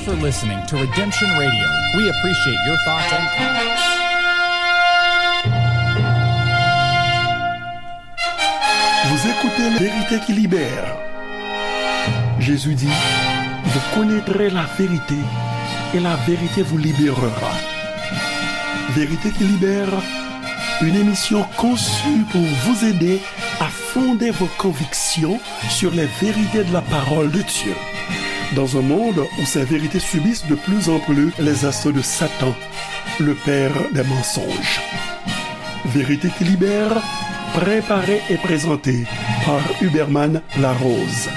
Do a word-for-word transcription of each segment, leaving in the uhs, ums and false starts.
For listening to Redemption Radio. We appreciate your thoughts and comments. Vous écoutez La Vérité qui libère. Jésus dit, vous connaîtrez la vérité et la vérité vous libérera. Vérité qui libère, une émission conçue pour vous aider à fonder vos convictions sur les vérités de la parole de Dieu. Dans un monde où ces vérités subissent de plus en plus les assauts de Satan, le père des mensonges. Vérité qui libère, préparée et présentée par Huberman Larose.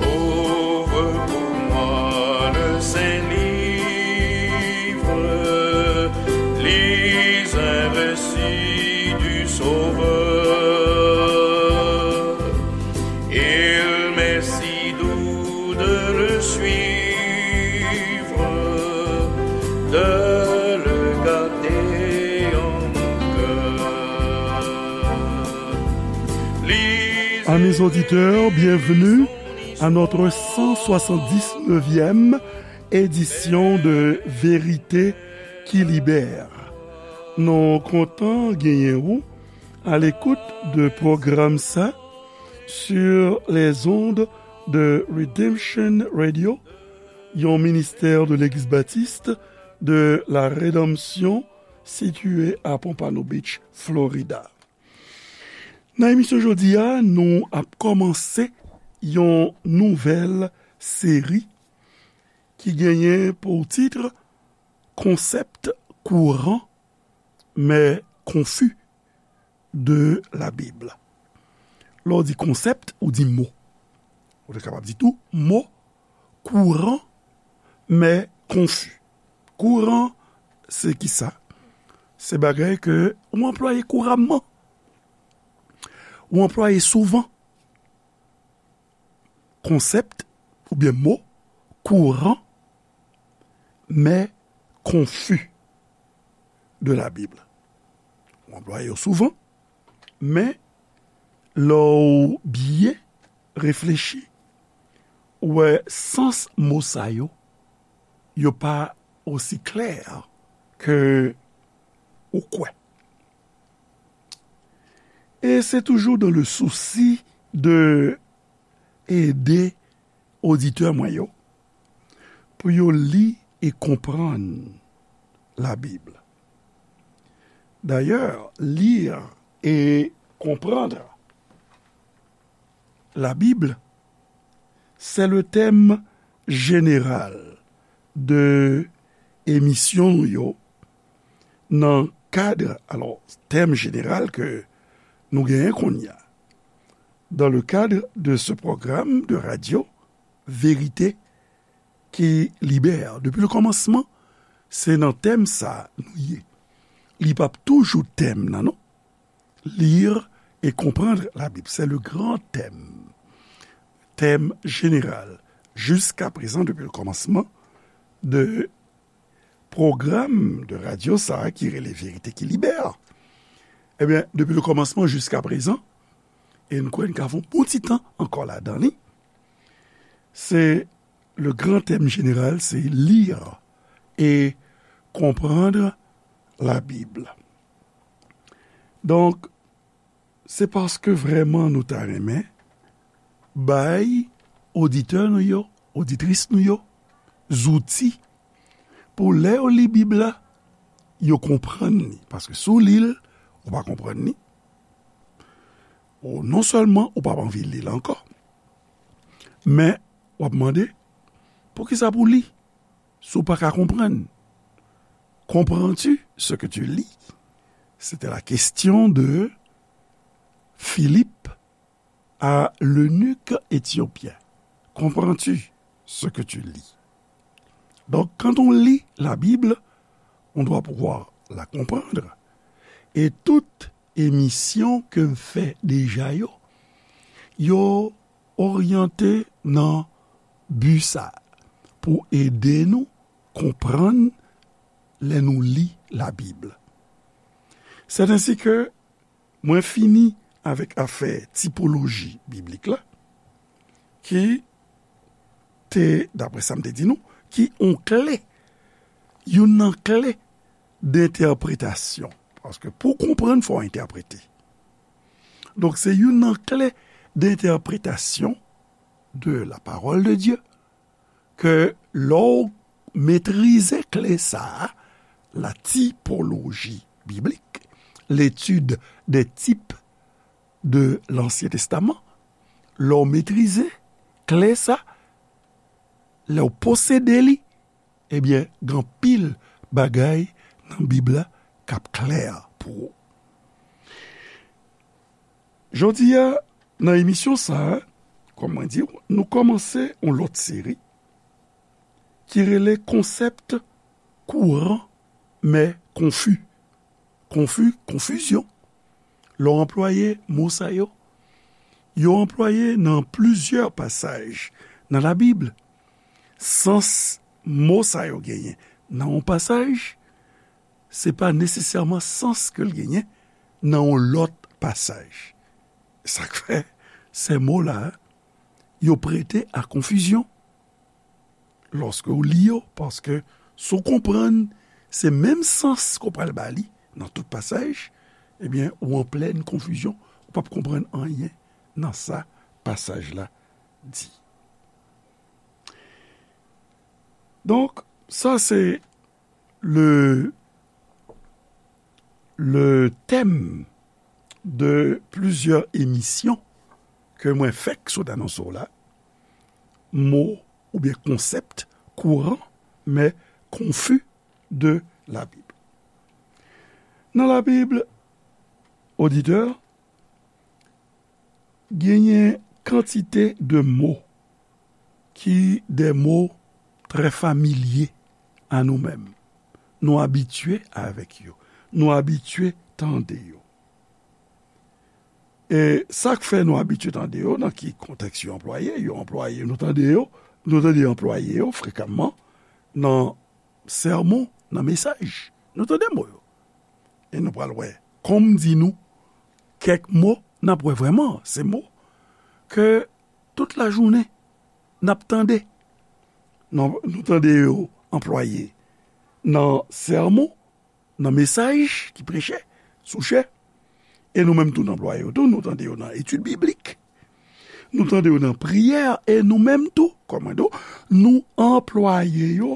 Ouvre pour moi le saint livre, lis un récit du Sauveur. Il m'est si doux de le suivre, de le garder en mon cœur. Amis auditeurs, bienvenue à notre cent soixante-dix-neuvième édition de Vérité qui libère. Nou kontan genyen ou à l'écoute de pwogram sa sur les ondes de Redemption Radio, yon ministè de Legliz Batis de la Redanmsyon sitiye a Pompano Beach, Florida. Nan emisyon jodi a, nou ap kòmanse yon nouvèl seri ki genyen pou tit Concepts courants mais confus de la Bible. Lè w di konsèp, ou di mo. Ou te kapab di tou mo kouran, men konfi. Kouran, se ki sa? Se bagay ke ou anplwaye kouramman. Ou anplwaye souvan. Konsèp oubyen mo kouran, men konfi de la Bib. Ou anplwaye yo souvan, men lè w byen reflechi, ou wè sans mo sa yo, yo pa osi klè ke ou kwè. E se toujou dans le souci de ede oditè mwen yo pou yo li e konprann la Bible. D'ailleurs, lire et comprendre la Bible, c'est le thème général de emisyon nou yo nan kad, alò, tèm jeneral ke nou genyen kounye a. Dans le cadre de ce programme de radio, Vérité qui libère. Depi le kòmansman, se nan tèm sa nou ye. Li p ap toujou tèm nan, non. Lire et comprendre la Bible, c'est le grand thème. Thème général. Jusqu'à présent, depuis le commencement de pwogram de radyo sa a ki rele Verite ki Libè. Ebyen, depi le kòmansman jiska prezan, e n kwè n ka fè yon bon ti tan ankò ladan li, se le grand thème général, se lire et comprendre la Bible. Donk, se paske vrèman nou ta renmen bay oditè nou yo, oditris nou yo, zouti pou lè yo li Bib la, yo konprann li. Paske si w li l, ou pa konprann li, ou non sèlman ou p ap anvi li l ankò, men w ap mande, poukisa pou li si w pa ka konprann? Comprends-tu ce que tu lis? C'était la question de Philippe à l'eunuque éthiopien. Comprends-tu ce que tu lis? Donc, quand on lit la Bible, on doit pouvoir la comprendre. Et toute emisyon ke m fè deja yo, yo oryante nan bi sa, pou ede nou konprann lè nou li Labib. C'est ainsi que mwen fini avèk afè tipoloji biblik la, ki te, daprè sa m te di nou, ki yon kle, youn nan kle de entèpretasyon. Paske pou w konprann, fò w entèprete. Donk, se youn nan kle de entèpretasyon de la parole de Dieu, ke lè w metrize kle sa a, la typologie biblique, l'étude des types de l'Ancien Testament, lè w metrize kle sa, lè w posede li, ebyen, gen anpil bagay nan Bib la k ap klè pou ou. Jodi a, nan emisyon sa a, kòm mwen di w, nou kòmanse yon lòt seri ki rele konsèp kouran, men konfi. Konfi, konfizyon. Lè w anplwaye mo sa yo, yo anplwaye nan plizyè pasaj nan Labib. Sans mo sa yo genyen nan yon pasaj, se pa nesesèman sans ke l genyen nan yon lòt pasaj. Sa k fè sè mo la, yo prete a konfizyon lòske w li yo, paske si w konprann se menm sans ke w pral ba li nan tout pasaj, ebyen, ou an plèn konfizyon, ou p ap konprann anyen nan sa pasaj la di. Donk, sa se le, le thème de plusieurs émissions ke mwen fèk sot anonse w la, mo oubyen konsèp kouran, men konfi de Labib. Nan Labib, oditè, genyen kantite de mo ki de mo trè familye a nou menm. Nou abitye avèk yo. Nou abitye tande yo. E sa k fè nou abitye tande yo, nan ki kontèks yo anplwaye, yo anplwaye, nou tande yo, nou tande yo anplwaye yo frekanman nan sèmon, nan mesaj. Nou tande mo yo. E nou pral wè, kòm m di nou, kèk mo, n ap wè vrèman, se mo ke tout lajounen, n ap tande. Nou, nou tande yo anplwaye nan sèmon, nan mesaj ki preche sou chè. E nou menm tou, n anplwaye yo tou, nou tande yo nan etid biblik. Nou tande yo nan priyè, e nou menm tou, kòm mwen di w, nou anplwaye yo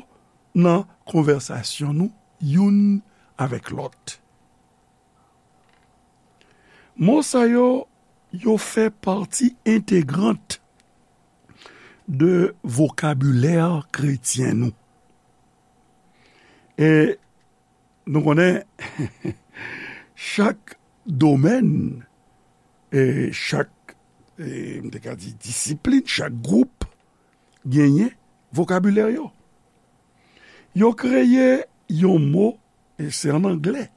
nan konvèsasyon nou youn avèk lòt. Mo sa yo, yo fè pati entegrant de vokabilè kretyen nou. E nou konnen, chak domèn, e chak, e m te ka di disiplin, chak gwoup genyen vokabilè yo. Yo kreye yon mo, e se an anglè,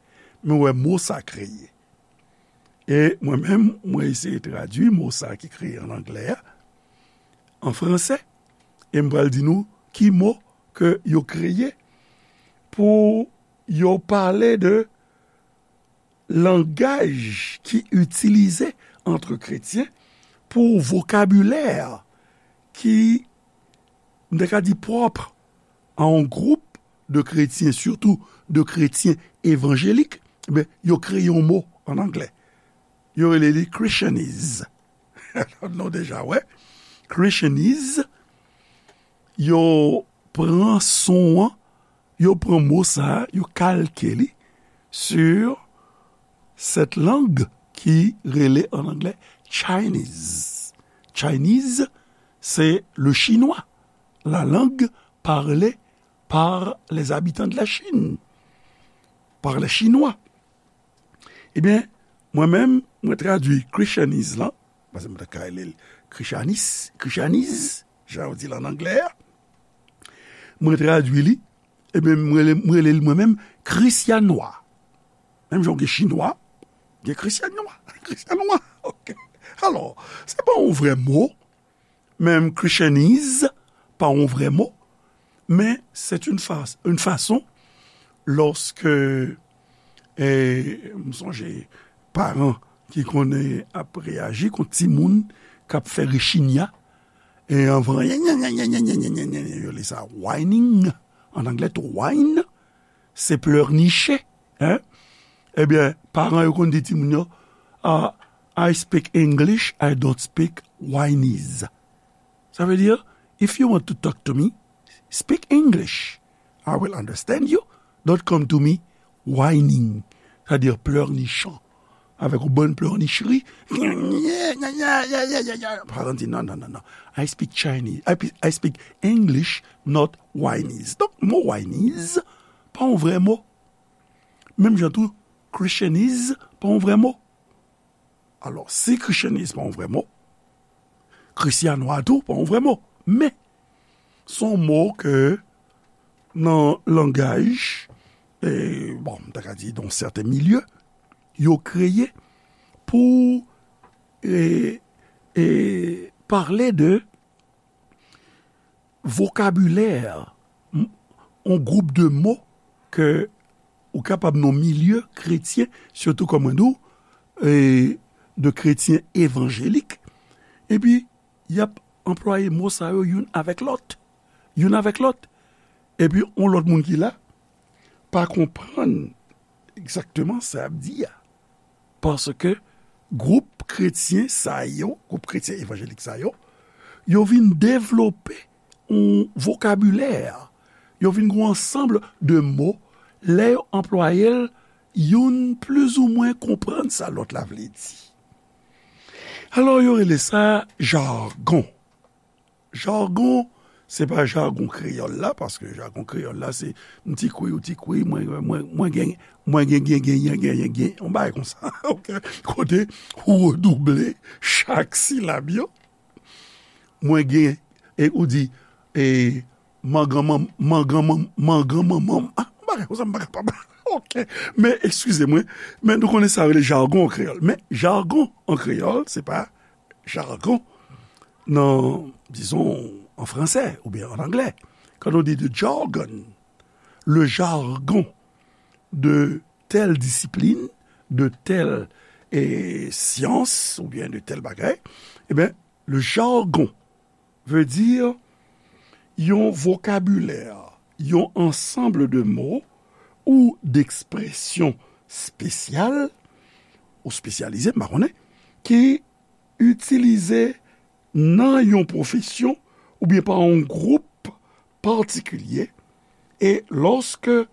men w wè mo sa kreye. E mwen menm, mwen eseye tradui mo sa ki kreye an anglè a, an fransè, e m pral di nou ki mo ke yo kreye pou yo pale de langaj ki itilize ant kretyen pou vokabilè ki, m te ka di, pwòp a yon gwoup de kretyen, sitou de kretyen evanjelik, ben, yo kreye yon mo an anglè. Yo rele li Christianese. Nou deja wè, Christianese, yo pran son an, yo pran mo sa a, yo kalke li sur cette langue ki rele an anglè Chinese. Chinese, c'est le chinois, la langue parlée par les habitants de la Chine, par les Chinois. Ebyen, mwen menm, mwen tradui Christianese lan, paske mwen ta ka rele l Christianis, Christianese, jan yo di l an anglè a. Mwen tradui li, ebyen, mwen rele, mwen rele l mwen menm Krisyanwa. Menm jan w gen Chinwa, gen Krisyanwa. Krisyanwa, ok. Alò, se pa yon vrè mo, menm Christianese pa yon vrè mo, men c'est une fa-, une façon, lorsque E m sonje paran ki konnen ap reyaji kont timoun k ap fè rechinya. E anvan, yo rele sa whining. An anglè tou, whine, se pleurnicher, hein? Ebyen, paran yo konn di timoun yo, ah, I speak English, I don't speak Whinese. Sa vle di, if you want to talk to me, speak English. I will understand you. Don't come to me whining. Sa vle di pleurnichant. Avèk yon bann pleurnicherie. Paran di, non, non, non, non. I speak Chinese. I, pe- I speak English, not Whinese. Donk, mo Whinese, pa yon vrè mo. Menm jan tou, Christianese, pa yon vrè mo. Alò, si Christianese pa yon vrè mo, Krisyanwa tou pa yon vrè mo. Men, se yon mo ke nan langaj, e, bon, m ta ka di, dans certains milieux, yo kreye pou, e, e, pale de vokabilè, m- yon gwoup de mo ke ou kapab nan milye kretyen, sitou kòm mwen di w, e, de kretyen evanjelik, epi y ap anplwaye mo sa yo youn avèk lòt, youn avèk lòt. Epi yon lòt moun ki la pa konprann egzakteman sa y ap di a. Paske gwoup kretyen sa yo, gwoup kretyen evanjelik sa yo, yo vin devlope yon vokabilè. Yo vin gen yon ansanm de mo, lè yo anplwaye l, youn plizoumwen konprann sa lòt la vle di. Alò, yo rele sa jagon. Jagon, se pa jagon kreyòl la, paske jagon kreyòl la, se m ti kwi, ou ti kwi, mwen, mwen, mwen gen, mwen gen, gen, gen, gen, gen, gen, gen, yon bagay konsa, ok? Kote ou redouble chak silab yo. Mwen gen, e ou di, e, mangan manm, mangan manm, mangan manman m. Ah, yon bagay konsa, m pa kapab. Ok. Men, eskize mwen, men nou konnen sa rele jagon an kreyòl. Men, jagon an kreyòl, se pa jargon nan, dizon, an fransè oubyen an anglè. Kan nou di the jargon, le jargon de tèl disiplin, de tèl, e, syans oubyen de tèl bagay, ebyen, le jargon veut dire yon vokabilè, yon ansanm de mo ou d'ekspresyon espesyal ou espesyalize, m pa konnen, ki itilize nan yon pwofesyon oubyen pa yon gwoup patikilye, e lòske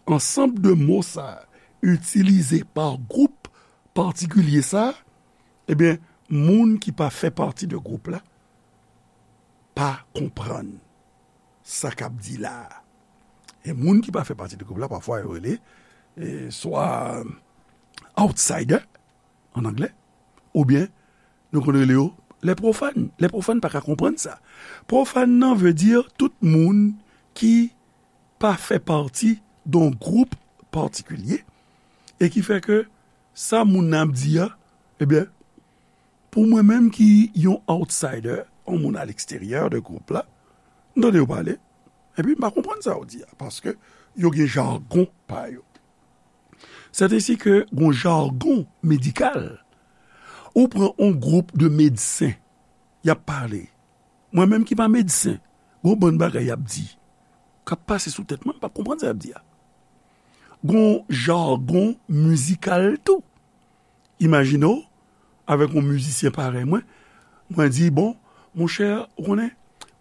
ansanm de mo sa itilize pa gwoup patikilye sa, ebyen, moun ki pa fè pati de gwoup la pa konprann sa k ap di la a. E moun ki pa fè pati de gwoup la, pafwa yo rele, e, swa outsider, an anglè, oubyen nou konn rele yo lè pwofàn. Lè pwofàn pa ka konprann sa. Pwofàn nan vle di tout moun ki pa fè pati de yon gwoup patikilye e ki fè ke sa moun nan ap di a, ebyen, pou mwen menm ki yon outsider, yon moun aleksteryè de gwoup la, m tande yo pale, epi m pa konprann sa yo di a, paske yo gen jagon pa yo. Sètensi ke gon jagon medikal. Ou pran yon gwoup de medsen, y ap pale. Mwen menm ki pa medsen, gon bann bagay y ap di k ap pase sou tèt mwen, m p ap konprann sa y ap di a. Gon jagon mizikal tou. Imajine w, avèk yon mizisyen parèy mwen, mwen di, bon, monchè, ou konnen,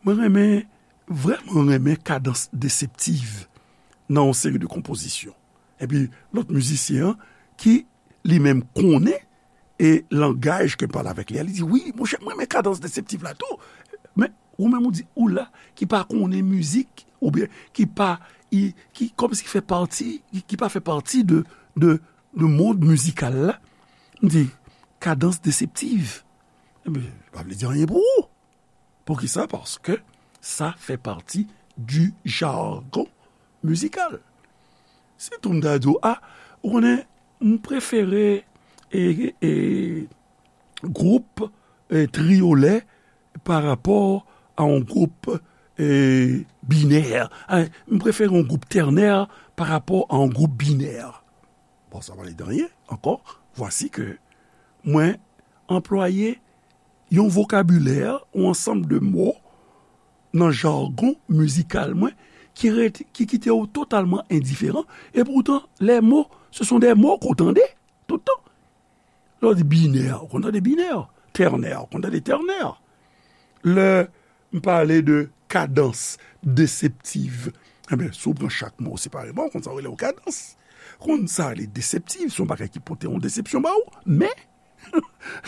mwen renmen, vrèman renmen kadans deseptiv nan yon seri de konpozisyon. Epi, lòt mizisyen an, ki li menm konnen e langaj ke m pale avèk li a, li di, wi, monchè, mwen renmen kadans deseptiv la tou. Men, ou menm ou di, ou la, ki pa konnen mizik, oubyen ki pa, i- ki kòmsi ki fè pati, ki, ki pa fè pati de, de, de mond mizikal la. M di, kadans deseptiv. Ebyen, pa vle di anyen pou ou. Poukisa? Paske sa fè pati du jargon mizikal. Si tou m ta di w, a, ou konnen, m prefere, e, e, gwoup, e, triyolè pa rapò a yon gwoup, e, binè. A, m prefere yon gwoup tènè pa rapò a yon gwoup binè. Bon, sa pa vle di anyen ankò. Vwasi ke mwen anplwaye yon vokabilè, yon ansanm de mo nan jagon mizikal mwen ki ret, ki kite w totalman endiferan. E poutan, les mots, ce sont des mots ke w tande tout tan. Lè w di binè, ou konn tande binè. Tènè, ou konn tande tènè. Lè m pale de kadans deseptiv, enben, si w pran chak mo separeman, ou konn sa w rele yon kadans. Ou konn sa rele deseptiv, se yon bagay ki pote yon desepsyon ba ou. Men,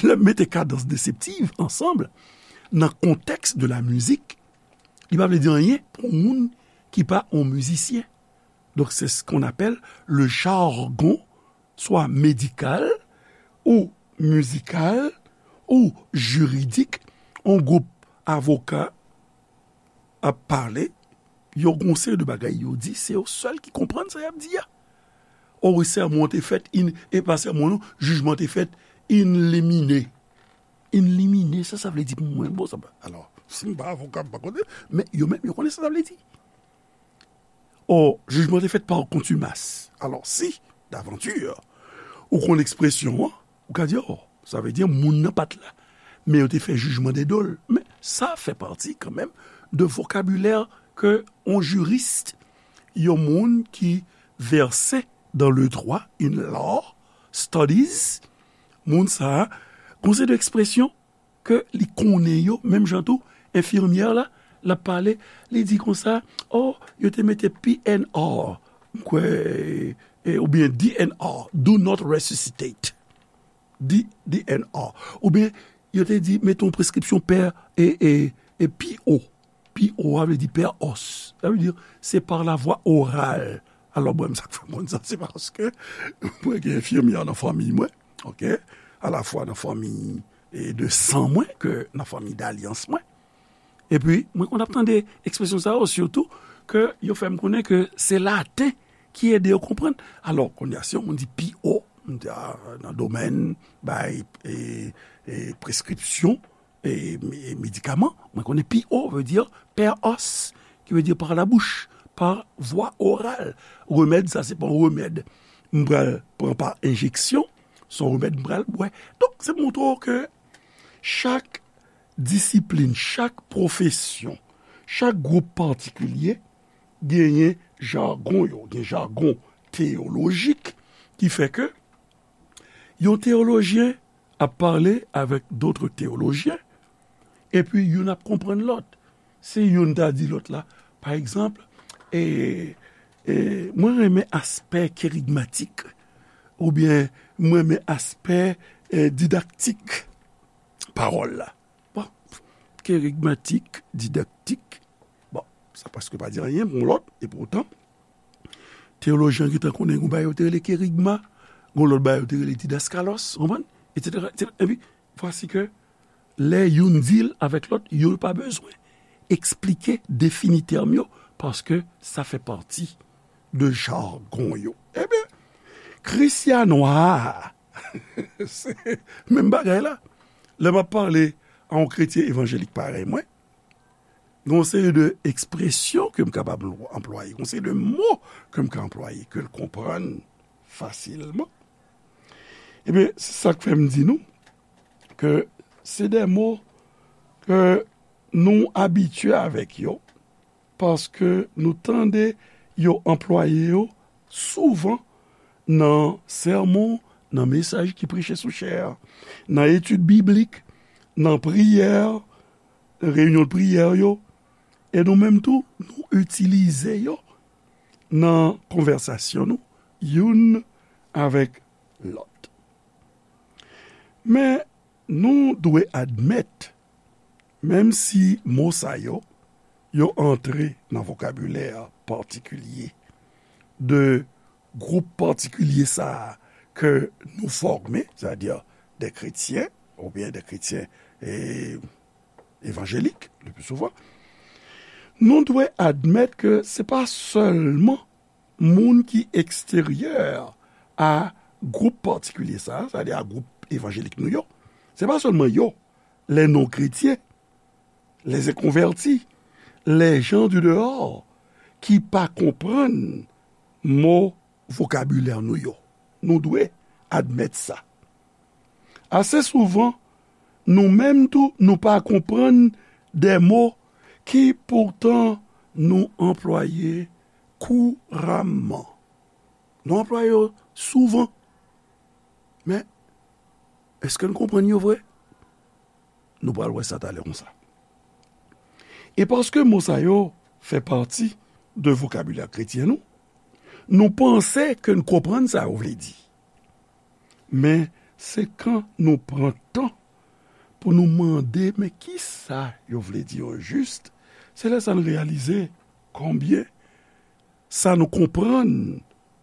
lè m mete kadans deseptiv ansanm, nan kontèks de la mizik, li pa vle di anyen pou moun ki pa yon mizisyen. Donk, se ce qu'on appelle le jargon, swa medikal, ou mizikal, ou jiridik. Yon gwoup avoka ap pale, yo gon seri de bagay yo di, se yo sèl ki konprann sa y ap di a. O, sèmon an te fèt in, e pa sèmon non, jijman te fèt in limine. In limine, sa sa vle di pou mwen? Bon, sa pa, alò, si m pa avoka, m pa konnen, men yo menm, yo konnen sa sa vle di. O, jijman te fèt pa kontimas. Alò, si, davanti, ou konn ekspresyon an, ou ka di, o, sa vle di moun nan pa t la. Men yo te fè jijman de do l. Men sa fè pati kanmenm de vokabilè ke yon jiris, yon moun ki vèse dans le droit, in law studies, moun sa a, gon seri de ekspresyon ke li konnen yo, menm jan tou, enfimyè la, l ap pale, li di konsa, o, yo te mete P N R, m kwè, e, oubyen D N R, do not resuscitate. D, D N R. Oubyen, yo te di, mete yon preskripsyon pè, e, e, e P O. P O a vle di pè os. Sa vle di, se par la voie orale. Alò, mwen, sa k fè m konn sa, se paske mwen gen enfimyè nan fanmi mwen, oke? Alafwa nan fanmi, e, de san mwen ke nan fanmi dalyans mwen. Epi, mwen konn ap tande ekspresyon sa yo, sitou ke yo fè m konnen ke se laten ki ede yo konprann. Alò, kounye a, si yon moun di P O, m di, a, nan domèn bay, e, e, preskripsyon, e, e medikaman, mwen konnen P O vle di pè os, ki vle di par la bouche, par voie orale. Remèd, sa se pa yon remèd m pral pran pa enjeksyon, se yon remèd m pral bwè. Donk, se montre w ke chak disiplin, chak pwofesyon, chak gwoup patikilye genyen jagon yo, gen jagon teyolojik ki fè ke yon teyolojyen ap pale avèk dòt teyolojyen, epi youn ap konprann lòt. Si youn ta di lòt la, pa egzanp, e, e, mwen renmen aspè kerigmatik, oubyen mwen renmen aspè, e, didaktik pawòl la. Bon, kerigmatik, didaktik, bon, sa prèske pa di anyen pou lòt, e poutan, teyolojyen gentan konnen gon bagay yo te rele kerigma, gon lòt bagay yo te rele didaskalos, w konprann? Etsetera, etsetera. Epi, vwasi ke lè youn di l avèk lòt, yo pa bezwen eksplike, defini tèm yo, paske sa fè pati de jagon yo. Ebyen, Krisyanwa, se menm bagay la. Lè m ap pale a yon kretyen evanjelik parèy mwen, gen yon seri de ekspresyon ke m kapab anplwaye, gen yon seri de mo ke m ka anplwaye, ke l konprann fasilman. Ebyen, se sa k fè m di nou ke se de mo ke nou abitye avèk yo, paske nou tande yo anplwaye yo souvan nan sèmon, nan mesaj ki preche sou chè a, nan etid biblik, nan priyè, reyinyon priyè yo, e nou menm tou, nou itilize yo nan konvèsasyon nou, youn avèk lòt. Men, nou dwe admèt, menm si mo sa yo, yo antre nan vokabilè patikilye de gwoup patikilye sa a ke nou fòme, sètadi de kretyen, oubyen de kretyen, e, evanjelik, le pli souvan, nou dwe admèt ke se pa sèlman moun ki eksteryè a gwoup patikilye sa a, sètadi a gwoup evanjelik nou yo, se pa sèlman yo, les non-chrétiens, les inconvertis, les gens du dehors, ki pa konprann mo vokabilè nou yo. Nou dwe admèt sa. Ase souvan, nou menm tou, nou pa konprann de mo ki poutan nou anplwaye kouramman. Nou anplwaye yo souvan. Men, èske n konprann yo vre? Nou pral wè sa talè konsa. E paske mo sa yo fè pati de vokabilè kretyen nou, nou panse ke n konprann sa yo vle di. Men, se kan nou pran tan pou nou mande, men kisa yo vle di o jis, se lè sa n reyalize konbyen sa nou konprann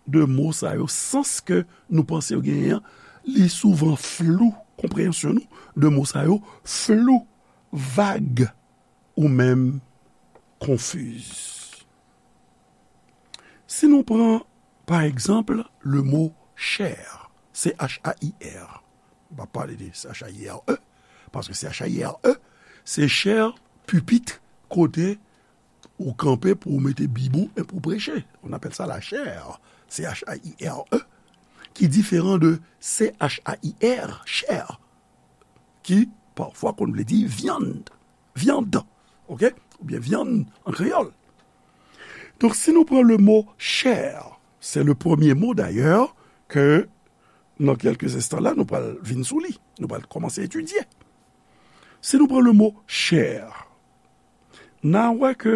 de mo sa yo, sans ke nou panse yo genyen an, li souvan flou, konpreyansyon nou de mo sa yo flou, vag, ou menm konfiz. Si nou pran, pa egzanp, le mo chè, C H A I R. M pa pale de C H A I R E, paske C H A I R E, se chè, pipit, kote ou kanpe pou w mete bib ou e pou w preche. On appelle ça la chaire, C H A I R E, ki diferan de C H A I R, chè, ki pafwa konn vle di vyann, vyann, oke? Oubyen vyann an kreyòl. Donk, si nou pran le mo chè, se le premye mo dayè ke nan kèlke enstan la, nou pral vin sou li, nou pral kòmanse etidye. Si nou pran le mo chè, n a wè ke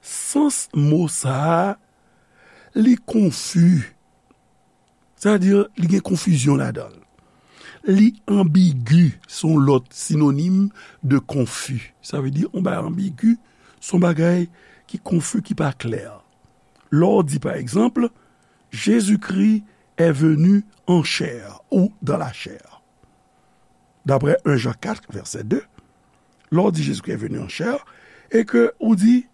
sans mo sa a, li konfi. Sètadi, li gen konfizyon ladan l. Li anbigi, se yon lòt sinonim de konfi. Sa vle di, yon bagay anbigi, se yon bagay ki konfi, ki pa klè. Lè w di, pa egzanp, Jésus-Christ est venu en chair ou dans la chair. D'après un Jean quatre, verset deux, lè w di Jésus-Christ est venu en chair, e ke ou di,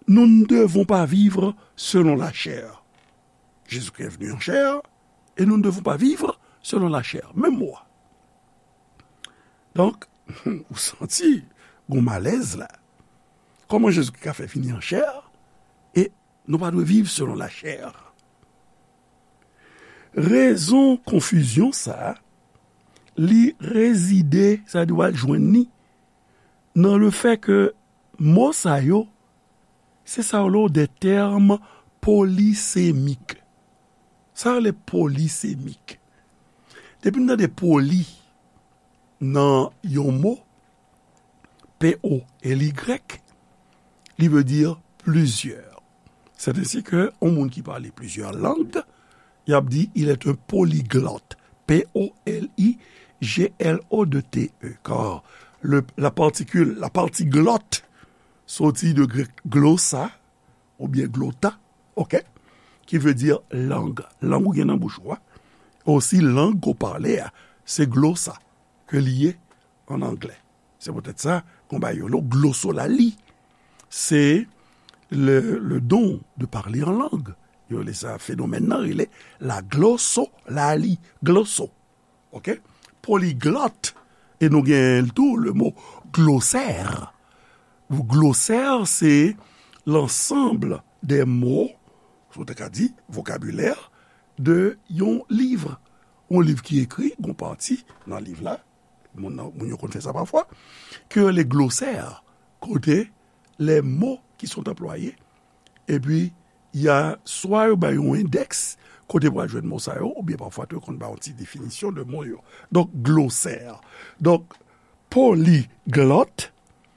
nous ne devons pas vivre selon la chair. Jésus-Christ est venu en chair, et nous ne devons pas vivre selon la chair. Menm mo a. Donk, ou santi gon malèz la. Kòman Jezikri ka fè vini an chè, e nou pa dwe viv selon lachè? Rezon konfizyon sa a, li rezide, sa di w al jwenn li, nan lefè ke mo sa yo, se sa yo rele de tèm polisemik. Sa yo rele polisemik. Depi n tande poli nan yon mo, P O L Y, li vle di plizyè. C'est ainsi que yon moun ki pale plizyè lang, y ap di, il est un polyglotte. P O L I G L O T T E. Car le, la particule, la partie glotte, soti de grèk glossa, oubyen glota, oke, ki vle di lang. Lang ou gen nan bouch ou a. Osi, lang ou pale a, se glossa ke li ye an anglè. Se poutèt sa, gon bagay yo rele glosolali. Se le, le don de parler en langue. Yo rele sa, fenomèn nan rele la glosolali, gloso. Oke? Poliglot. E nou gen tou le mo glosè. Glosè, se l'ensemble des mots, si w te ka di, vokabilè, de yon liv. Yon liv ki ekri, gon pati nan liv la, moun nan, moun yo konn fè sa pafwa, ke yo rele glosè, kote les mots qui sont employés, epi y a swa yo bay yon endèks kote pou al jwenn mo sa yo, oubyen pafwa tou yo konn bay yon ti definisyon de mo yo. Donk, glosè. Donk, poliglot,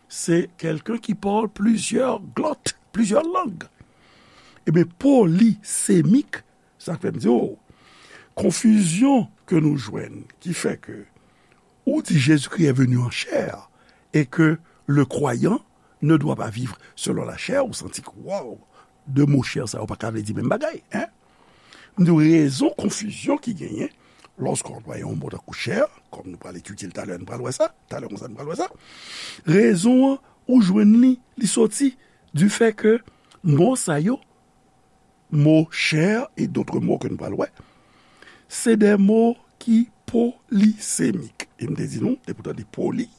se quelqu'un qui parle plusieurs glottes, plusieurs langues. Ebyen, polisemik, sa k fè m di w, konfizyon ke nou jwenn, ki fè ke ou di Jésus-Christ est venu en chair et que le croyant ne doit pas vivre selon la chair, ou santi ke, waw, de mo chè sa yo pa ka vle di menm bagay, en? M di w rezon konfizyon ki genyen lòske w anplwaye yon mo tankou chè, kòm nou pral etidye l talè, nou pral wè sa, talè konsa nou pral wè sa. Rezon an, ou jwenn li, li soti du fait que mo sa yo, mo chè e dòt mo ke nou pral wè, se de mo ki polisemik. E m te di nou, depi w tande poli,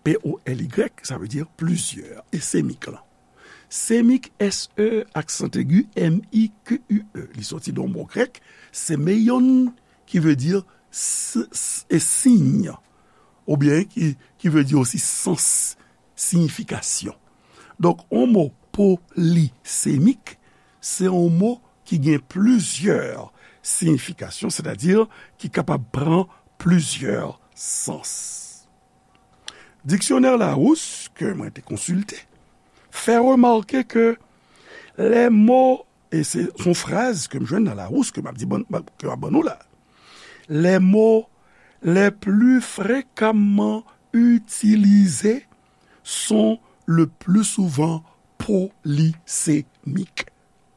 P O L Y, sa vle di plizyè, e semik lan. Semik, S E, aksan egi, M I Q U E. Li soti de yon mo grèk, semeion, ki vle di s-, s-, e siy, oubyen ki, ki vle di osi sans, siyifikasyon. Donk, yon mo polisemik, se yon mo ki gen plizyè siyifikasyon, sètadi ki kapab pran plizyè sans. Diksyonè Larousse, ke mwen te konsilte, fè remake ke les mots, e se yon fraz ke m jwenn nan Larousse, ke m ap di, ban-, ban-, ke m ap ban nou la, les mots les plus fréquemment utilisés sont le plus souvent polysémiques.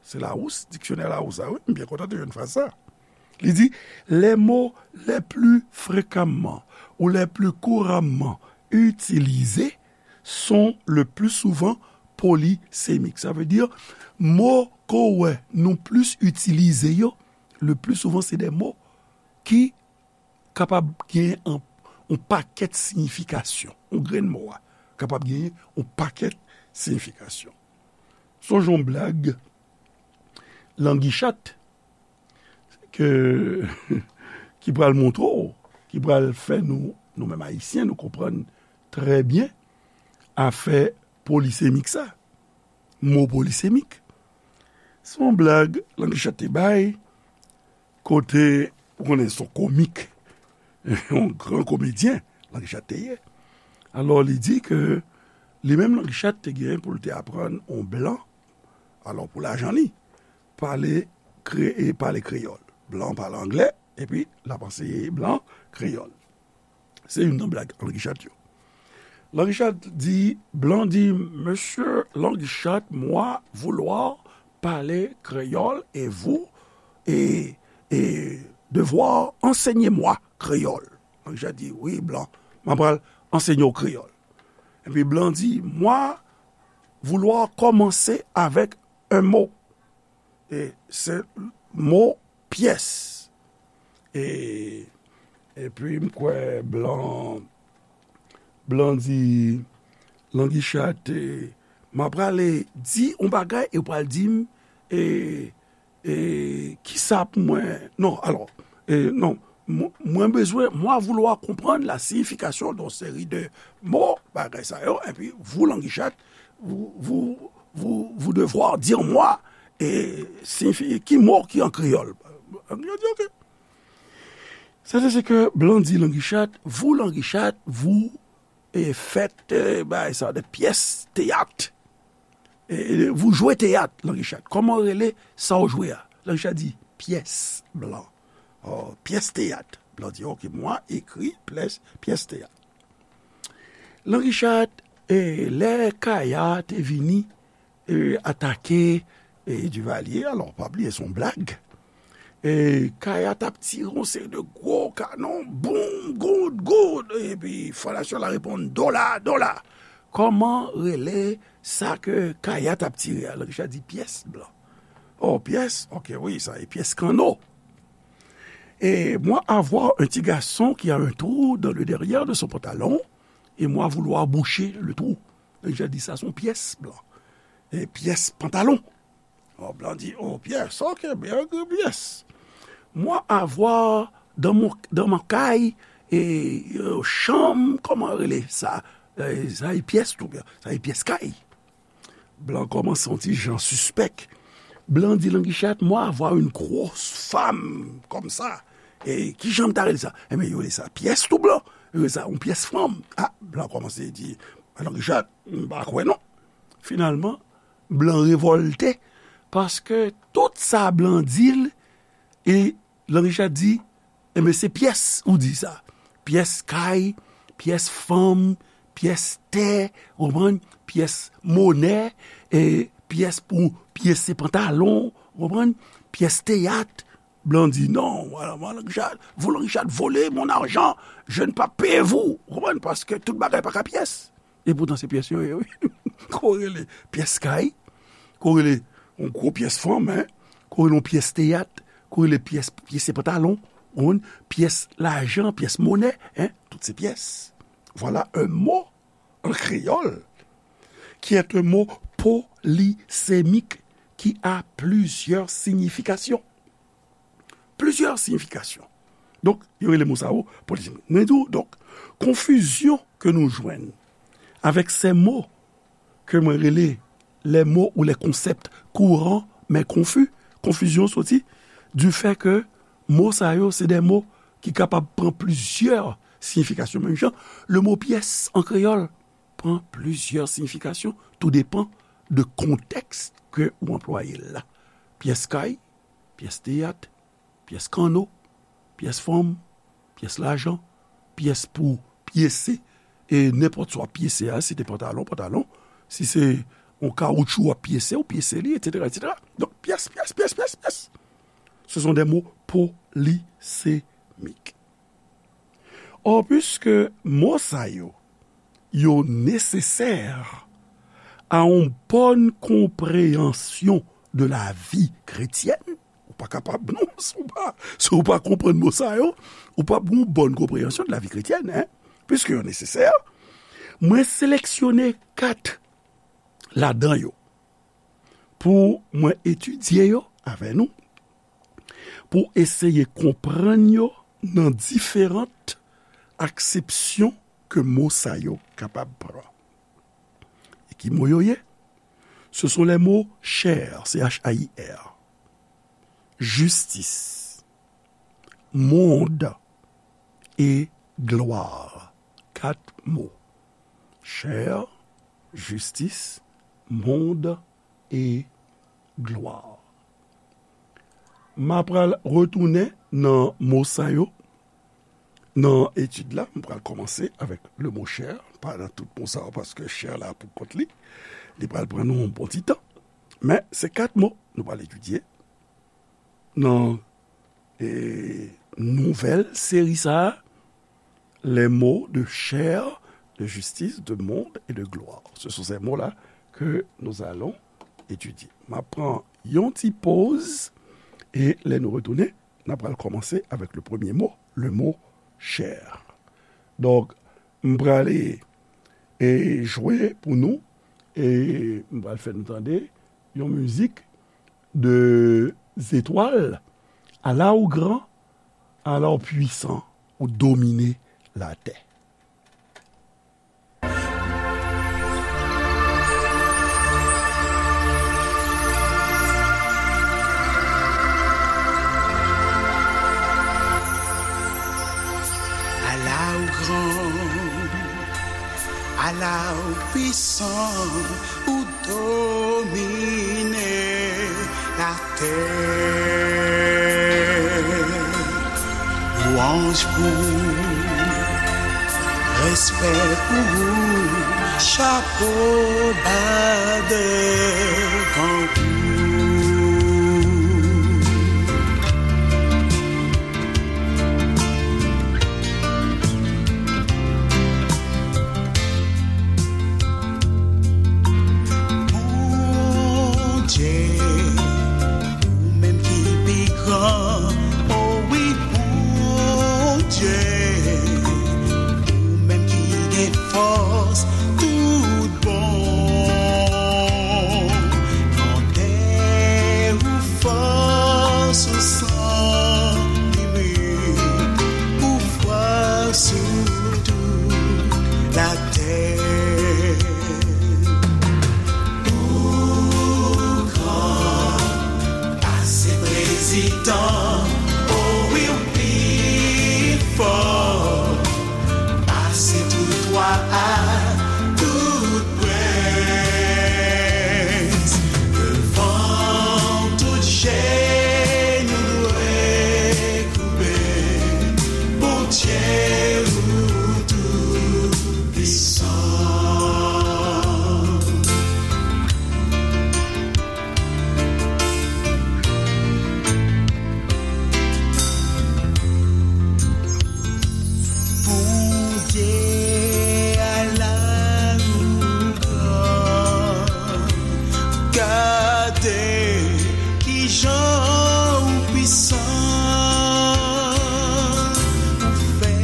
Se Larousse, diksyonè Larousse, a wi, m byen kontan te jwenn fraz sa. Li di, les mots les plus fréquemment ou les plus couramment utilisés sont le plus souvent polysémiques. Sa vle di, mo ke w wè nou plis itilize yo, le plus souvent, se de mo ki kapab gen an, yon pakèt siyifikasyon. Yon grenn mo a kapab gen yon pakèt siyifikasyon. Sonj yon blag Langichat ke, ki pral montre w, ki pral fè nou, nou menm Ayisyen, nou konprann trè byen afè polisemik sa. Mo polisemik. Se yon blag Langichat te bay, kote, ou konnen, se yon komik, yon gran komedyen, Langichat te ye. Alò, li di ke li menm Langichat te gen pou l te aprann yon blan, alò, pou lajan li, pale kre-, e pale kreyòl. Blan pale anglè, epi l ap anseye blan kreyòl. Se youn nan blag Langichat yo. Langichat di, blan di, Monsieur Langichat, moi vouloir parler créole et vous, et, et devoir enseigner moi créole. Langichat di, wi, blan, mwen pral ansenye w kreyòl. Epi blan di, moi vouloir commencer avec un mot. E se mo pyès. E, epi m kwè blan, blan di, Langichat, e, m ap prale di yon bagay e w pral di m, e, e, kisa pou mwen, non, alò, e, non, mwen, mwen bezwen, moi vouloir comprendre la signification d'une série de mots, bagay sa yo, epi vous, Langichat, vous, vous, vous, vous devoir dire moi, e, siyifi, ki mo ki an kreyòl. Langichat di, ok. Sa se, se ke blan di Langichat, vous, Langichat, vous, e, faites, e, bagay sa, de pyès teyat. E, e, vous jouez teyat, Langichat. Kòman w rele sa w jwe a? Langichat di, pyès, blan. Oh, pyès teyat. Blan di, ok, moi écris pyès, pyès teyat. Langichat, e, lè Kaya te vini, e, atake, e, Duvalier, alò, pa bliye, se yon blag. E, Kaya t ap tire yon seri de gwo kanon, boum, goud, goud, epi fondasyon la reponn, dola, dola. Kòman rele sa ke Kaya t ap tire a? Langichat di pyès blan. Oh, pyès? Ok, wi, sa e pyès kanno. Et moi avoir un petit garçon qui a un trou dans le derrière de son pantalon, et moi vouloir boucher le trou. Langichat di sa se yon pyès blan. E pyès pantalon. Oh, blan di, oh, pyès, ok, byen, pyès. Moi avoir dans mon, dans ma kay, e, e, chanm, kòman rele sa? E, sa e pyès tou byen, sa e pyès kay. Blan kòmanse yon ti jan sispèk. Blan di Langichat, moi avoir une grosse femme comme ça. E kijan m ta rele sa? Enben, yo rele sa pyès tou blan. Yo rele sa yon pyès fanm. Ah, blan kòmanse di, Langichat, m pa kwè non. Finalman, blan revòlte, paske tout sa blan di l, e Langichat di, enben, se pyès ou di sa. Pyès kay, pyès fanm, pyès tè, ou konprann? Pyès monè, e pyès pou pyese pantalon, ou konprann? Pyès teyat. Blan di, non, voilà, moi, Langichat, vous, Langichat, volez mon argent, je ne pas payer vous. Ou konprann? Paske tout bagay pa ka pyès. E poutan se pyès yo ye, wi. Ko rele pyès kay, ko rele yon gwo pyès fanm, hein, ko rele yon pyès teyat, ko rele pyès, pyese pantalon, ou konprann, pyès lajan, pyès monè, hein, tout se pyès. Voilà un mot en créole qui est un mot polisemik ki a plizyè siyifikasyon. Plizyè siyifikasyon. Donk, yo rele mo sa yo polisemik. Mwen di w, donk, konfizyon ke nou jwenn avèk se mo ke mwen rele les mots ou les concepts courants mais confus. Konfizyon soti du fait ke mo sa yo, se de mo ki kapab pran plizyè siyifikasyon. Menm jan, le mo pyès an kreyòl pran plizyè siyifikasyon, tou depan de kontèks ke ou anplwaye l la. Pyès kay, pyès teyat, pyès kanno, pyès fanm, pyès lajan, pyès pou pyese, e nenpòt sa w ap pyese a, si se te pantalon, pantalon, si se yon kawoutchou w ap pyese, ou pyese li, etsetera, etsetera. Donk, pyès, pyès, pyès, pyès, pyès. Ce sont des mots polysémiques. Or, puiske mo sa yo, yo nesesè a yon bòn konpreyansyon de la vi kretyèn, ou pa kapab, non, si w pa, si w pa konprann mo sa yo, ou p ap gen yon bòn konpreyansyon de la vi kretyèn, en, puiske yo nesesè, mwen seleksyone kat ladan yo pou mwen etidye yo avè nou, pou eseye konprann yo nan diferan aksepsyon ke mo sa yo kapab pran. E ki mo yo ye? Ce sont les mots chair, C H A I R, justice, monde et gloire. Kat mo. Chair, justice, monde et gloire. M a pral retounen nan mo sa yo. Nan etid la, m pral kòmanse avèk le mo chair, pa nan tout mo sa yo, paske chair la pou kont li. Li pral pran nou yon bon ti tan. Men, se kat mo nou pral etidye nan, e, nouvèl seri sa a, les mots de chair, de justice, de monde et de gloire. Ce sont ces mots-là que nous allons étudier. M ap pran yon ti poz, e lè nou retounen, n ap pral kòmanse avèk le premye mo, le mo chair. Donk, m prale, e, jwe pou nou, e m pral fè nou tande yon mizik de zetwal, ala ou gran, ala ou pwisan, ou domine latè. Ala ou gran, ala ou pwisan, ou domine latè. Lwanj pou ou, respè pou ou, chapo ba devan ou. Bondye, ou menm ki pi gran, o wi, Bondye, ou menm ki gen fòs tout bon. Grandè ou, fòs ou san limit, ou fwa sou tout latè. Ou gran pase prezidan, o wi, ou pi fò pase tout wa ak tout prens. Devan w tout jenou dwe koube, Bondye ou tou pwisan. Bondye a la ou gran, gade kijan ou pwisan, ou fè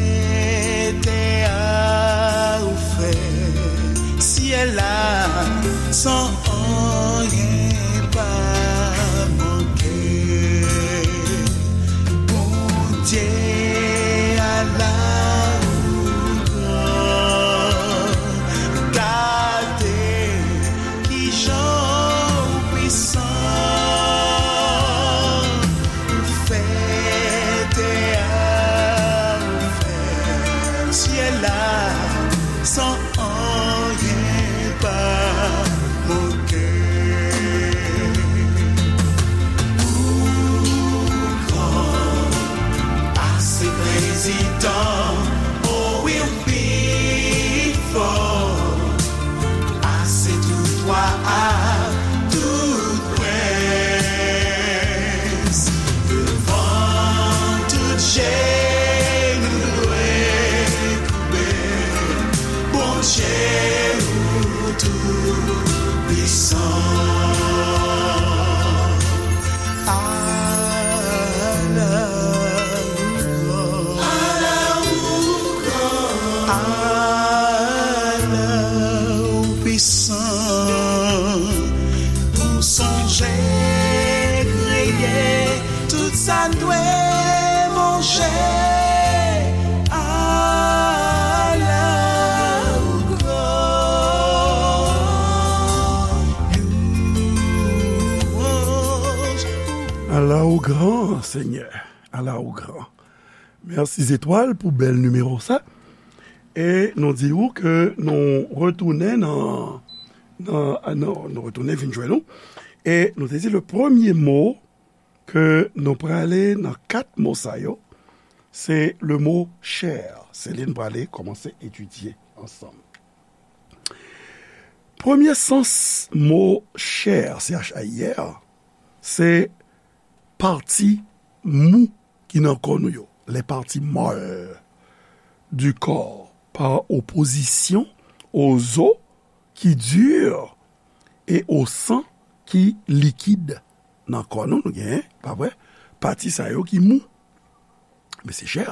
Sit down, oh, we'll be full. Pase tout wa ak tout prens. Devan tout je nou dwe koube. Bondye ou tou pwisan. Ala ou gran. Ala ou gran. Ala ou pwisan. Ou sonje kreye tout sa n dwe manje. Ala ou gran. Louanj. Ala ou gran, Senyè. Ala ou gran. Mèsi Zetwal pou bèl nimewo sa. E nou di ou ke nou retounen nan, nan, nan, nou retounen vin jwenn nou. E nou te di le premye mo ke nou prale nan kat mo sa yo, se le mo chè. Se li n prale kòmanse etidye ansanm. Premye sans mo chè, C H A I R, se pati mou ki nan kò nou yo, les parties molles du corps, par opposition aux os qui durent et au sang qui liquide. Nan kò nou, nou genyen, pa vre, pati sa yo ki mou. Men se chè.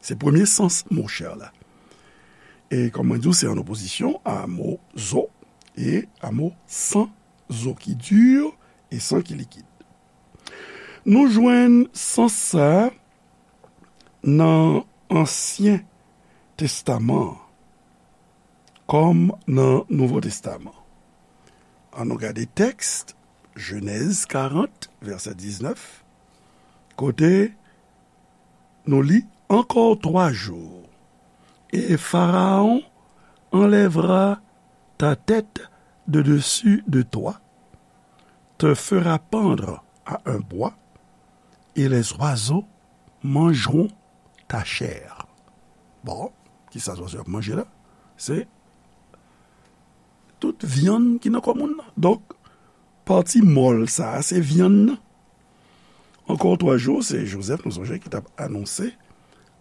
Se premye sans mo chè la. E kòm mwen di w, se an opozisyon a mo zo e a mo san, zo ki di e san ki likid. Nou jwenn sans sa a nan Ansyen Testaman an kòm nan Nouvo Testaman. Ann nou gade tèks, Jenèz karant, vèsè diznèf, kote nou li, Encore trois jours, et Pharaon enlèvera ta tête de dessus de toi, te fera pendre à un bois, et les oiseaux mangeront ta chair. Bon, kisa zwazo ap manje la? Se tout vyann ki nan kò moun nan. Donk, pati mòl sa a, se vyann nan. Encore trois jours, se Jozèf, nou sonje, ki t ap anonse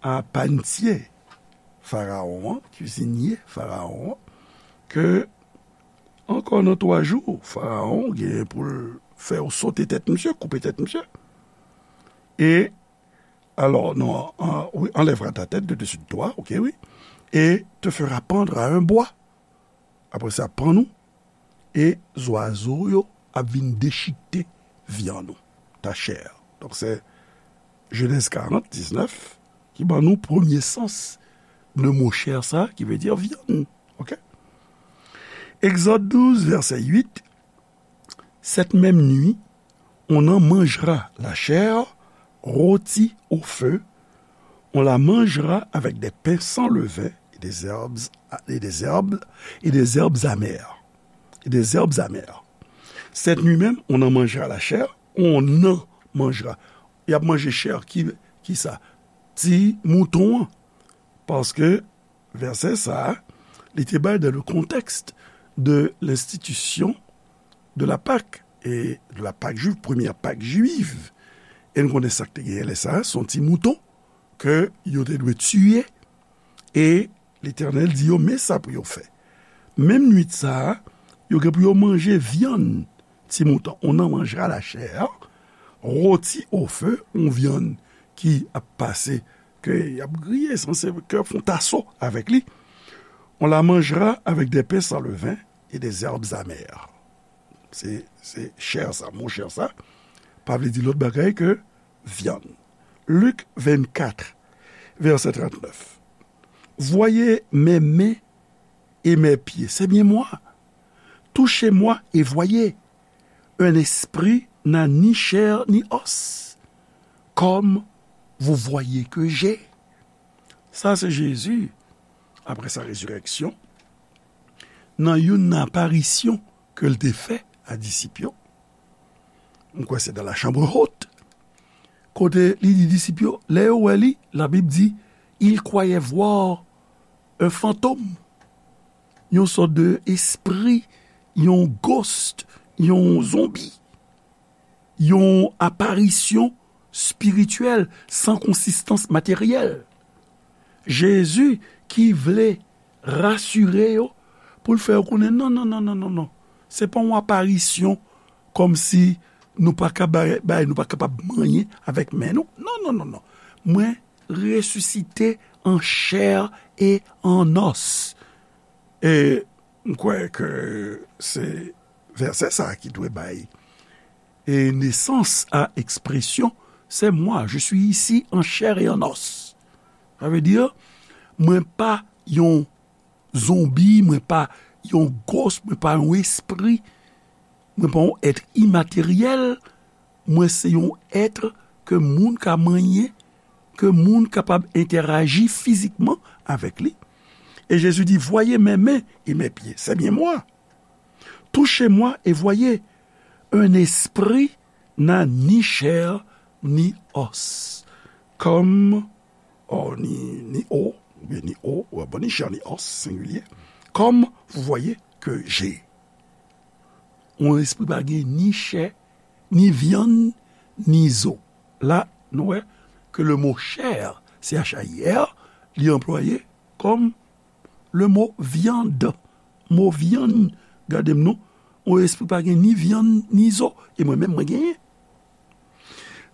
a pannye Farawon an, kizinye Farawon an, ke ankò nan twa jou, Farawon gen pou l fè yo sote tèt misye, koupe tèt misye. E, alò, non, an, wi, enlèvera ta tête de dessus de toi, ok, wi, et te fera pendre à un bois. Apre sa, pann ou, e zwazo yo ap vin dechikte vyann ou, ta chair. Donk, se Jenèz karant, diznèf, ki ban nou premye sans de mo chair sa, ki vle di vyann. Ok? Exode douze, verset huit, Cette même nuit, on en mangera la chair rôtie au feu, on la mangera avec des pains sans levain et des herbes, et des herbes, et des herbes amères. Et des herbes amères. Cette nuit même, on en mangera la chair, on en mangera. Y ap manje chè ki, ki sa? Ti mouton an. Paske vèsè sa a, li te bay dans le contexte de l'institution de la Pâque, et de la Pâque juive, première Pâque juive. E nou konnen sa k te genyen lè sa a, se yon ti mouton ke yo te dwe tiye, e Letènèl di yo, men sa pou yo fè. Menm nwit sa a, yo gen pou yo manje vyann ti mouton. On en mangera la chair, rôtie au feu, yon vyann ki ap pase, ke y ap griye, sanse ke fon taso avèk li. On la mangera avec des pains sans levain et des herbes amères. Se, se chè sa, mo chè sa, pa vle di lòt bagay ke vyann. Luc vingt-quatre, verset trente-neuf. Voyez mes mains et mes pieds, c'est bien moi. Touchez-moi et voyez. Un esprit n'a ni chair ni os, comme vous voyez que j'ai. Sa se Jezi, apre sa rezirèksyon, nan youn nan aparisyon ke l te fè a disip yo. M kwè se dans la chambre haute. Kote li di disip yo, lè yo wè li, Labib di, ils croyaient voir un fantôme, yon sòt de espri, yon ghost, yon zonbi, yon aparisyon espirityèl san konsistans materyèl. Jezi ki vle rasire yo pou l fè yo konnen, non, non, non, non, non, non. Se pa yon aparisyon kòmsi nou pa ka bay, bay, nou pa kapab manyen avèk men nou. Non, non, non, non. Mwen resisite an chè e an os. E m kwè ke se vèsè sa a ki dwe bay e nesans a ekspresyon, c'est moi, je suis ici en chair et en os. Sa vle di, mwen pa yon zonbi, mwen pa yon ghost, mwen pa yon espri, mwen pa yon èt imateryèl, mwen se yon èt ke moun ka manyen, ke moun kapab entèraji fizikman avèk li. E Jezi di, voyez mes mains et mes pieds, c'est bien moi. Touchez-moi et voyez, un esprit n'a ni chair ni os. Comme, oh, ni, ni os, oubyen ni os, ou bon, ni chair ni os, sengilye. Comme vous voyez que j'ai. Yon espri pa gen ni chè, ni vyann, ni zo. La, nou wè ke le mo chair, C H A I R, li anplwaye kòm le mo viande. Mo vyann, gade m non, yon espri pa gen ni vyann, ni zo. E mwen menm, mwen genyen.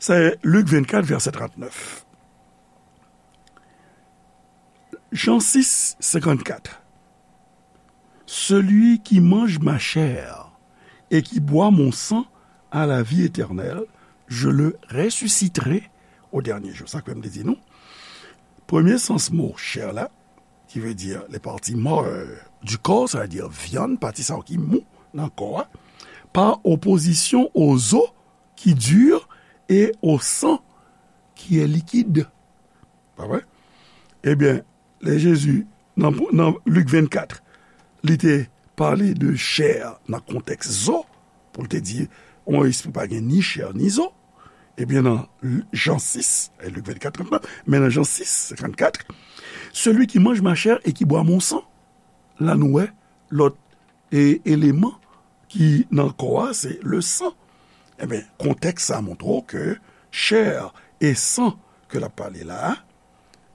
Se Lik vennkat, vèsè trannèf. Jan sis, senkannkat. Celui qui mange ma chair et qui boit mon sang a la vie éternelle, je le ressusciterai au dernier jour. Sa kwè m te di nou. Premye sans mo chair la, ki vle di les parties molles du corps, sa vle di vyann, pati sa yo ki mou nan kò a, par opposition aux os qui durent et au sang qui est liquide. Pa vre? Ebyen, lè Jezi, nan, nan Lik vennkat, li te pale de chè nan kontèks zo, pou l te di, yon espri pa gen ni chè ni zo. Ebyen, nan Jan sis, e Lik vennkat, trannèf, men nan Jan sis, senkannkat, celui qui mange ma chair et qui boit mon sang, la nou wè lòt e eleman ki nan kò a, se le san. Ebyen, kontèks sa montre w ke chè e san ke l ap pale la a,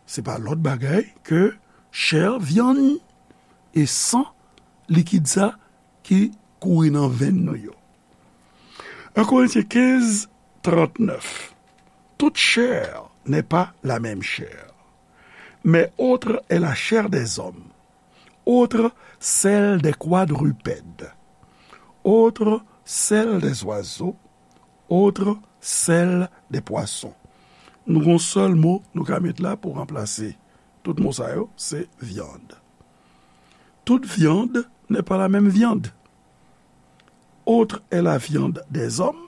se pa lòt bagay ke chè, vyann, e san, likid sa ki kouri nan venn nou yo. Un Corinthiens quinze, trente-neuf. Toute chair n'est pas la même chair, mais autre est la chair des hommes, autre celle des quadrupèdes, autre celle des oiseaux, autre celle des poissons. Nou gon sèl mo nou ka met la pou ranplase tout mo sa yo, se viande. Toute viande n'est pas la même viande. Autre est la viande des hommes,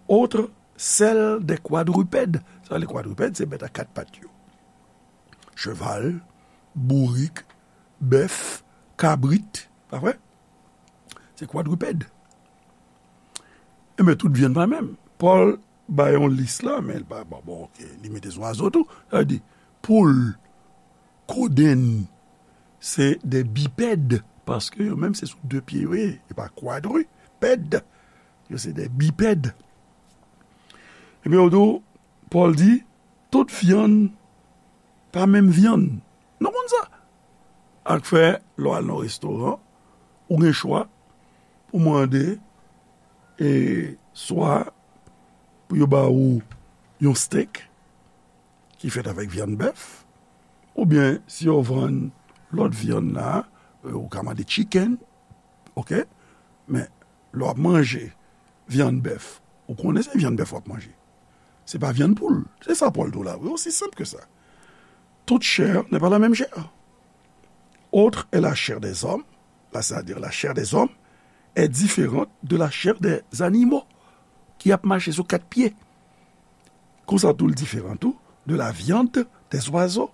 autre celle des quadrupèdes. Sa, les quadrupèdes, se bèt a kat pat yo. Cheval, bourik, bèf, kabrit, pa vre? Se kwadripèd. Enben, tout vyann pa menm. Pòl bay yon lis la, men li pa, bon, bon, ok, li mete zwazo tou. Sa vle di, poul, kodenn, se de bipèd, paske yo menm se sou de pye yo ye, e pa kwadripèd. Yo se de bipèd. Ebyen, ou di, Pòl di, tout vyann pa menm vyann. Nou konn sa. Ak fè, lè w al nan restoran, ou gen chwa pou mande, e, swa pou yo ba ou yon steak ki fèt avèk vyann bèf, oubyen si yo vann lòt vyann la, e, ou ka mande chicken, ok? Men, lè w ap manje vyann bèf, ou konnen se vyann bèf w ap manje. Se pa vyann poul. Se sa Pòl di w la, wi, aussi simple que ça. Toute chair n'est pas la même chair. Autre est la chair des hommes, là, c'est-à-dire la chair des hommes est différente de la chair des animaux ki ap mache sou kat pye. Konsa tou, l diferan tou de la viande des oiseaux,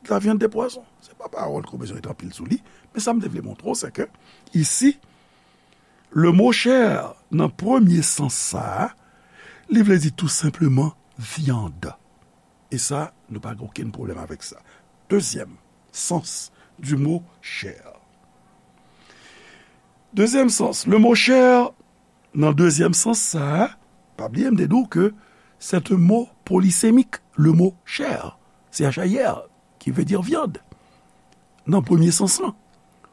de la viande des poissons. Se pa pawòl ke w bezwen ret anpil sou li, men sa m te vle montre w, se ke, isi, le mot chair, nan premye sans sa a, Li vle di tou senpleman vyann. E sa, nou pa gen okenn pwoblèm avèk sa. Dezyèm sans du mot chair. Dezyèm sans, le mot chair, nan dezyèm sans sa a, pa bliye m te di w ke c'est un mot polysémique, le mot chair, C H A I R, qui veut dire viande, nan premye sans lan.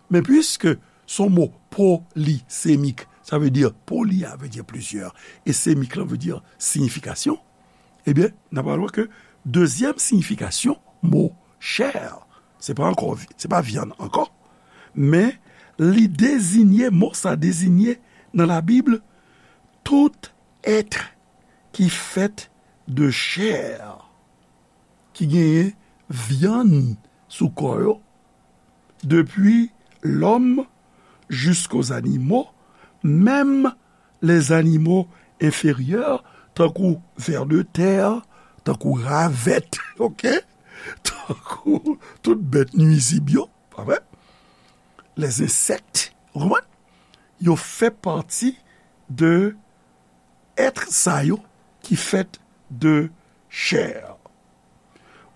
Men piske se yon mo polisemik, sa vle di poli a vle di plizyè, e semik lan vle di siyifikasyon, ebyen, n ap wè ke dezyèm siyifikasyon mo chair, se pa ankò, se pa vyann ankò, men li deziye, mo sa deziye nan Labib, tout être qui fait de chair, ki genyen vyann sou kò yo, depi lòm jisko zanimo, menm les animaux inférieurs, tankou vè de tè, tankou ravèt, ok? Tankou tout bèt nwizib yo, pa vre? Les insectes, ou konprann? Yo fè pati de être sa yo ki fèt de chair.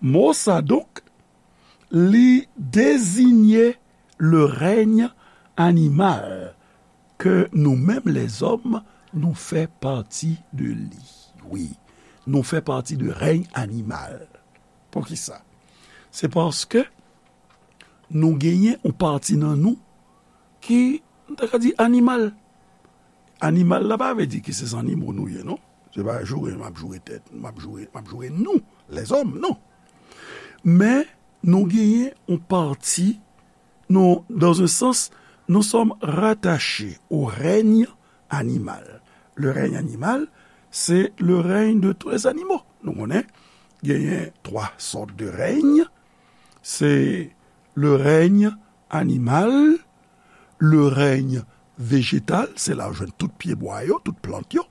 Mo sa donk, li deziye le règne animal ke nou menm lèzòm nou fè pati de li. Wi, nou fè pati de règne animal. Poukisa? Se paske nou genyen yon pati nan nou ki, nou ta ka di, animal. Animal la pa vle di ke se zannimo nou ye, non. Se pa joure m ap joure tèt, m ap joure, m ap joure nou, lèzòm, non. Men nou genyen yon pati, nou, dans un sens, nous sommes rattachés au règne animal. Le règne animal, c'est le règne de tous les animaux. Nou konnen, genyen twa sòt de règne. Se le règne animal, le règne vejetal, se la ou jwenn tout pyebwa yo, tout plant yo,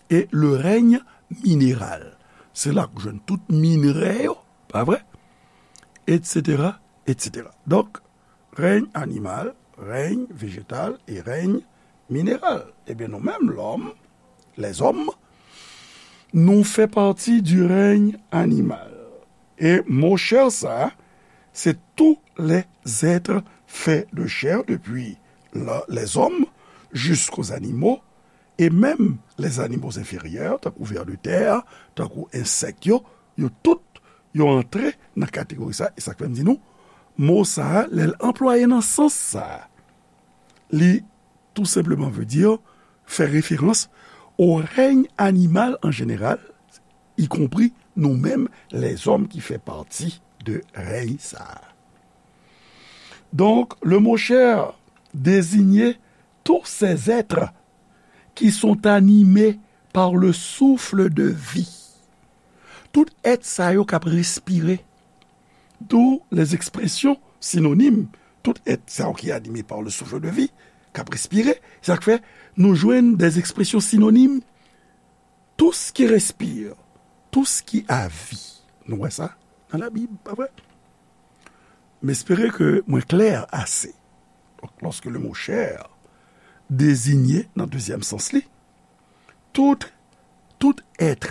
e le règne mineral, se la ou jwenn tout minrè yo, pa vre? Etsetera, etsetera. Donk, règne animal, règne vejetal e règne mineral. Ebyen, nou menm, lòm, lèzòm, nou fè pati du règne animal. E mo chair sa, se tous les êtres faits de chair, depi la, lèzòm, jisko zanimo, e menm les animaux inférieurs, tankou vè de tè, tankou ensèk yo, yo tout, yo antre nan kategori sa, e sa k fè m di nou, mo sa, lè l anplwaye nan sans sa, li tou senpleman vle di fè referans au règne animal en général, y compris nou menm, lèzòm ki fè pati de rèy sa a. Donc, le mot chair désignait tous ces êtres qui sont animés par le souffle de vie. Tout èt sa yo k ap respire. D'où les expressions synonymes, tout èt sa yo ki anime par le souffle de vie, k ap respire. Sa k fè nou jwenn des expressions synonymes, tout ce qui respire, tout ce qui a vie. Nou wè sa nan Labib, pa vre? M espere ke mwen klè ase. Donk, lòske le mo chair deziye nan dezyèm sans li, tout, tout èt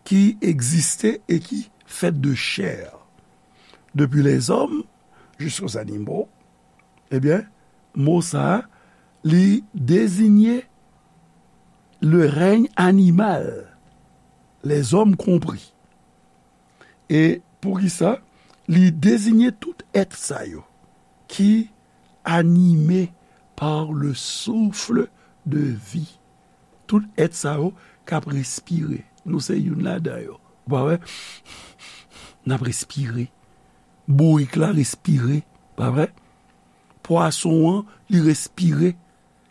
ki egziste e ki fèt de chair, depi lèzòm jiska zanimo, ebyen, mo sa a, li deziye le règne animal, les hommes compris. E poukisa? Li deziye tout èt sa yo ki anime par le souffle de vie. Tout èt sa yo k ap respire. Nou se youn ladan yo. Ou pa wè? N ap respire. Bourik la respire. Pa vre? Pwason an, li respire.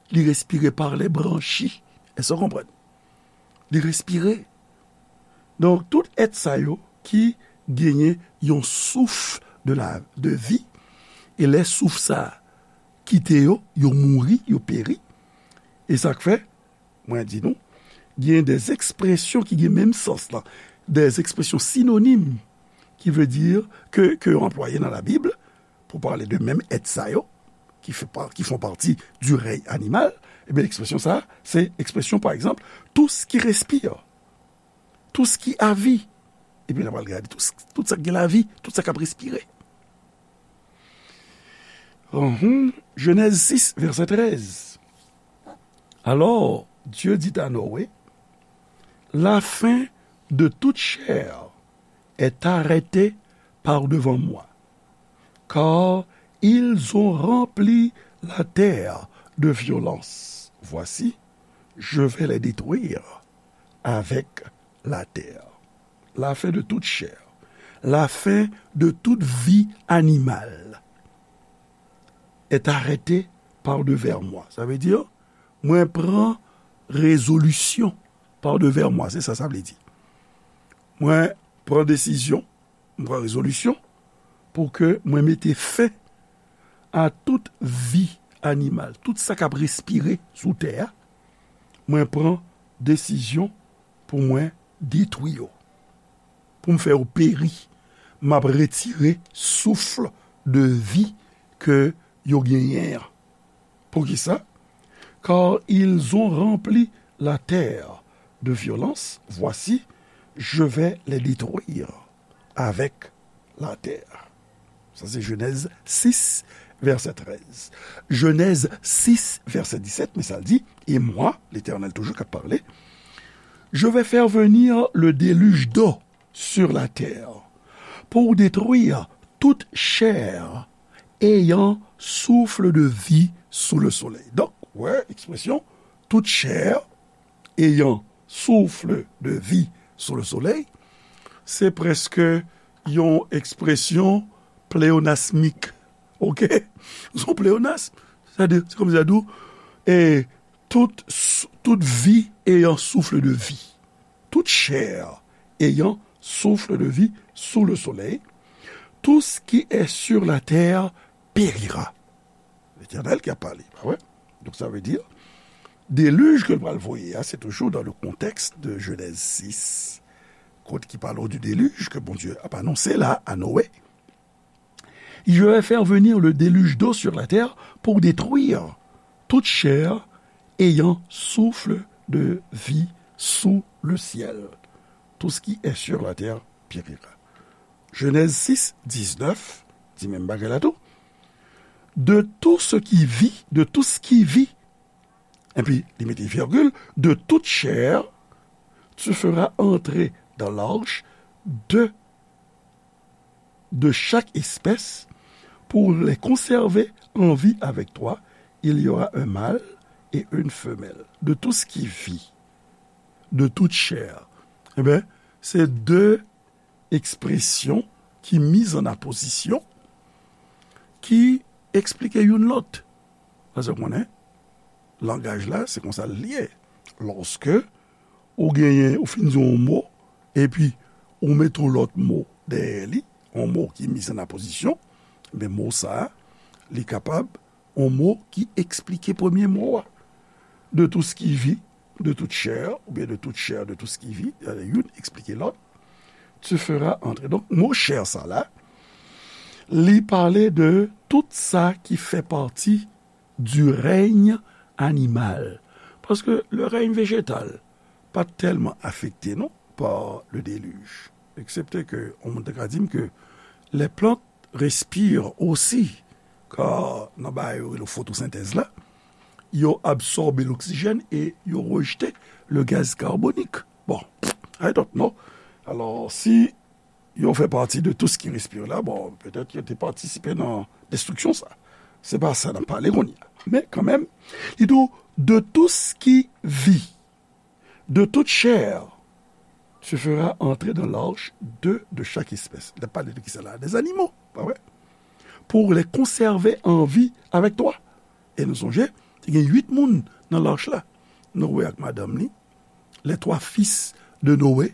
Li respire par les branchies. Èske w konprann? Li respire. Donk, tout èt sa yo ki genyen yon souf de la, de vi, e lè souf sa a kite yo, yo mouri, yo peri. E sa k fè, mwen di nou, gen des expressions ki gen menm sans lan, des expressions synonymes, ki vle di ke, ke yo anplwaye nan Labib pou pale de menm èt sa yo, ki fè pa, qui font partie du règne animal, Ebyen, ekspresyon sa a, se ekspresyon, pa egzanp, tout ce qui respire, tout ce qui a vie. Epi n a pral gade tout, tout sa k gen lavi, tout sa k ap respire. Uhum. Genèse six, verset treize. Alors, Dieu dit à Noé, la fin de toute chair est arrêtée par devant moi, car ils ont rempli la terre de violence. Voici, je vais les détruire avec la terre. La fin de toute chair, la fin de toute vie animale est arrêtée par devant moi. Sa vle di, mwen pran rezolisyon par devant moi, se sa sa vle di. Mwen pran desizyon, mwen pran rezolisyon pou ke mwen mete fen a tout vi animal, tout sa k ap respire sou tè a. Mwen pran desizyon pou mwen detwi yo, pou m fè yo peri. M ap retire souf de vi ke yo genyen an. Poukisa? Car ils ont rempli la terre de violence. Voici, je vais les détruire avec la terre. Sa se Genèse six, verset treize. Genèse six, verset dix-sept, men sa l di, et moi, Letènèl toujou k ap pale, je vais faire venir le déluge d'eau sur la terre pour détruire toute chair ayant souffle de vie sous le soleil. Donk, wè, ekspresyon toute chair ayant souffle de vie sous le soleil, se prèske yon ekspresyon pleyonasmik. Oke? Se yon pleyonasm. Sètadi, se kòmsi sa di w, e tout, tout vie ayant souffle de vie. Toute chair ayant souffle de vie sous le soleil, tout ce qui est sur la terre périra. Letènèl ki ap pale, pa vre? Donk, sa vle di, delij ke l pral voye a, se toujou dans le contexte de Genèse six, kot ki pale du déluge ke Bondye ap anonse la a Noé. Je vais faire venir le déluge d'eau sur la terre pour détruire toute chair ayant souffle de vie sous le ciel. Tout ce qui est sur la terre périra. Genèse six, dix-neuf, di menm bagay la tou. De tout ce qui vit, de tout ce qui vit, epi li mete virgule, de toute chair, tu feras entrer dans l'arche deux de chaque espèce, pour les conserver en vie avec toi, il y aura un mâle et une femelle. De tout ce qui vit, de toute chair. Ebyen, se de ekspresyon ki miz an apozisyon, ki eksplike youn lòt. Paske w konnen, langaj la, se konsa l ye. Lòske ou genyen, ou fin di yon mo, epi ou mete yon lòt mo dèyè li, yon mo ki miz an apozisyon, men mo sa a, li kapab yon mo ki eksplike premye mo a. De tout ce qui vit, de toute chair, oubyen de toute chair, de tout ce qui vit, youn eksplike lòt. Tu feras entrer. Donk, mo chair sa la, li pale de tout sa ki fè pati du règne animal. Paske le règne végétal pa t tèlman afekte, non, par le déluge. Eksepte ke, yon moun ta ka di m ke les plantes respirent aussi, kar nan bagay yo rele fotosentèz la, yo absòbe loksijèn e yo rejte le gaz carbonique. Bon, I don't know. Alò, si yo fè pati de tout ce qui respire la, bon, petèt yo te patisipe nan destriksyon sa. Se pa sa n ap pale kounye a. Men kanmenm, li di w, de tout ce qui vit, de toute chair, tu feras entrer dans l'arche deux de chaque espèce. Li ap pale de kisa la? Des animaux, pa vre? Pour les conserver en vie avec toi. E nou sonje, te gen uit moun nan lach la. Noé ak madanm li, les trois fils de Noé,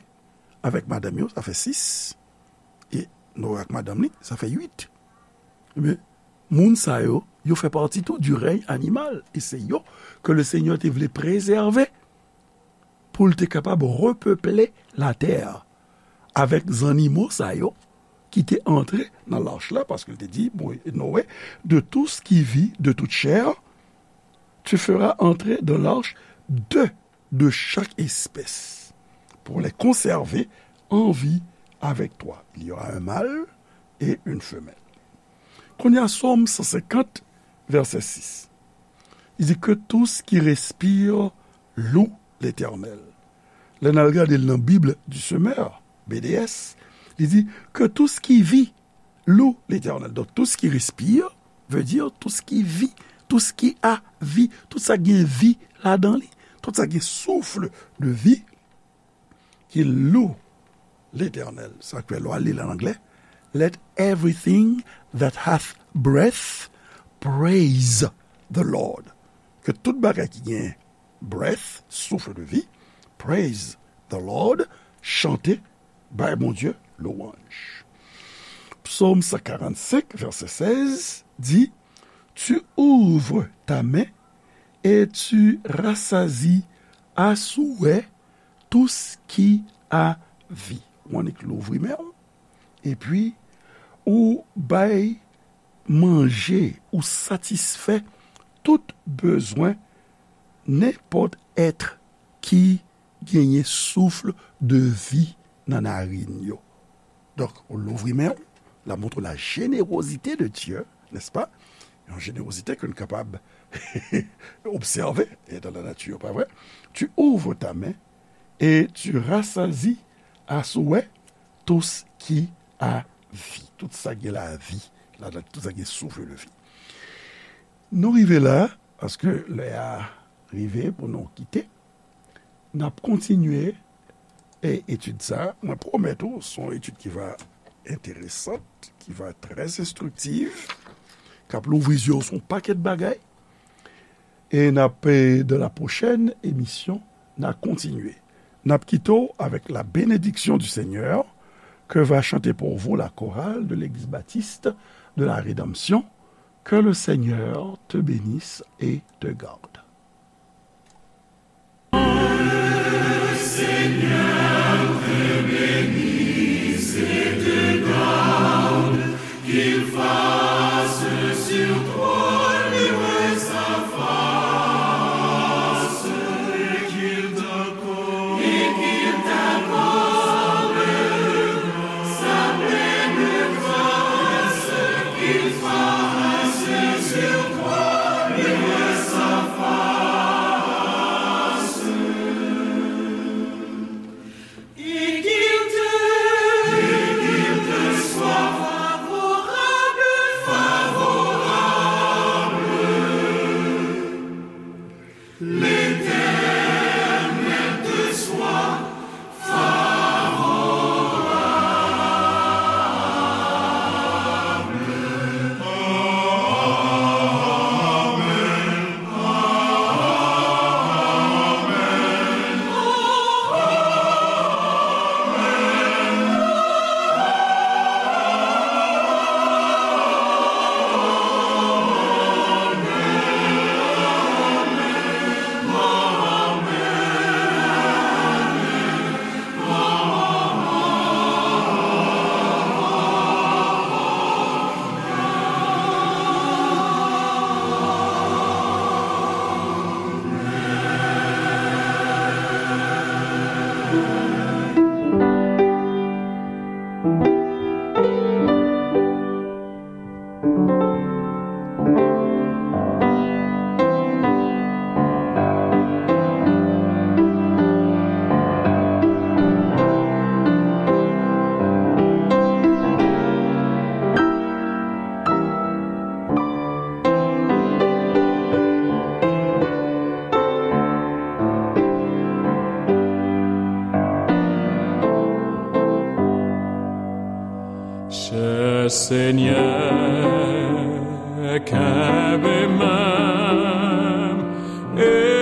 avèk madanm yo, sa fè sis. E Noé ak madanm li, sa fè uit. Ebyen, moun sa yo, yo fè pati tou du règne animal. E se yo ke le Senyè te vle prezève pou l te kapab repeple latè avèk zannimo sa yo ki te antre nan lach la, paske l te di, bon, Noé, de tout ce qui vit, de toute chair, Tu feras entrer dans l'arche deux de chaque espèce, pour les conserver en vie avec toi. Il y aura un mâle et une femelle. Kounye a, Sòm san senkant, vèsè sis. Li di, que tout ce qui respire loue l'Éternel. Lè n al gade l nan Bib du Semeur, B D S, li di, que tout ce qui vit loue l'Éternel. Donk, tout ce qui respire veut dire tout ce qui vit, tout ce qui a vie, tout sa ki gen vi ladan li, tout sa ki gen souffle de vie, qu'il loue l'Éternel. Sa k fè lè w al li l an anglè, let everything that hath breath praise the Lord. Ke tout bagay ki gen breath, souffle de vie, praise the Lord, chante, bay Bondye lwanj. Psaume cent quarante-cinq, verset seize, dit, tu ouvres ta main et tu rassasies à souhait tout ce qui a vie. Ou annik louvri men w, epi ou bay manje, ou satisfè tout bezwen nenpòt èt ki genyen souffle de vie nan narin yo. Donk, ou louvri men w, l ap montre la générosité de Dieu, n'est-ce pas? Yon jenerozite ke n kapab obsève e dans la nature, pa vre? Tu ouvres ta main et tu rassasies à souhait tout ce qui a vie. Tout sa gen lavi ladan, tout sa gen souffle de vie. Nou rive la, paske lè a rive pou nou kite. N ap kontinye, e, etid sa a. Mwen pwomèt ou, se yon etid ki va enteresant, ki va trè enstriktiv, k ap louvri zye w sou yon pakèt bagay. E n ap, e, dans la prochaine émission, n a kontinye. N ap kite w avec la bénédiction du Seigneur que va chanter pour vous la chorale de l'église baptiste de la Rédemption. Que le Seigneur te bénisse et te garde. Chè Senyè, kenbe men m e